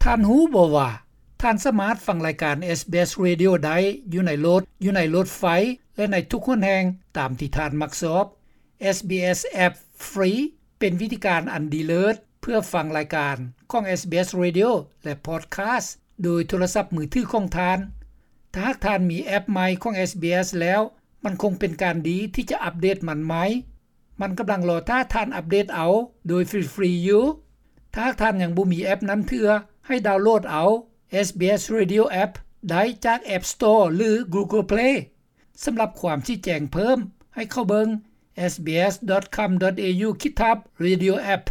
ທ່ານຮູ້ບໍ່ວ່າ ທ່ານສາມາດຟັງລາຍການ SBS Radio ໄດ້ຢູ່ໃນລົດ, ຢູ່ໃນລົດໄຟ ແລະ ໃນທຸກຫົນແຫ່ງຕາມທີ່ທ່ານມັກຊອບ. SBS App Free ເປັນວິທີການອັນດີເລີດ ເພື່ອຟັງລາຍການຂອງ SBS Radio ແລະ Podcast ໂດຍໂທລະສັບມືຖືຂອງທ່ານ. ຖ້າຫາກທ່ານມີແອັບໃໝ່ຂອງ SBS ແລ້ວ, ມັນຄົງເປັນການດີທີ່ຈະອັບເດດມັນໃໝ່. ມັນກຳລັງລໍຖ້າທ່ານອັບເດດເອົາໂດຍຟຣີໆຢູ່. ຖ້າຫາກທ່ານຍັງບໍ່ມີແອັບນັ້ນເທື່ອ, ໃຫ້ດາວໂຫຼດເອົາ SBS Radio App ໄດ້ຈາກ App Store ຫຼື Google Play. ສຳລັບຄວາມຊີ້ແຈງເພີ່ມ, ໃຫ້ເຂົ້າເບິ່ງ sbs.com.au/radioapp.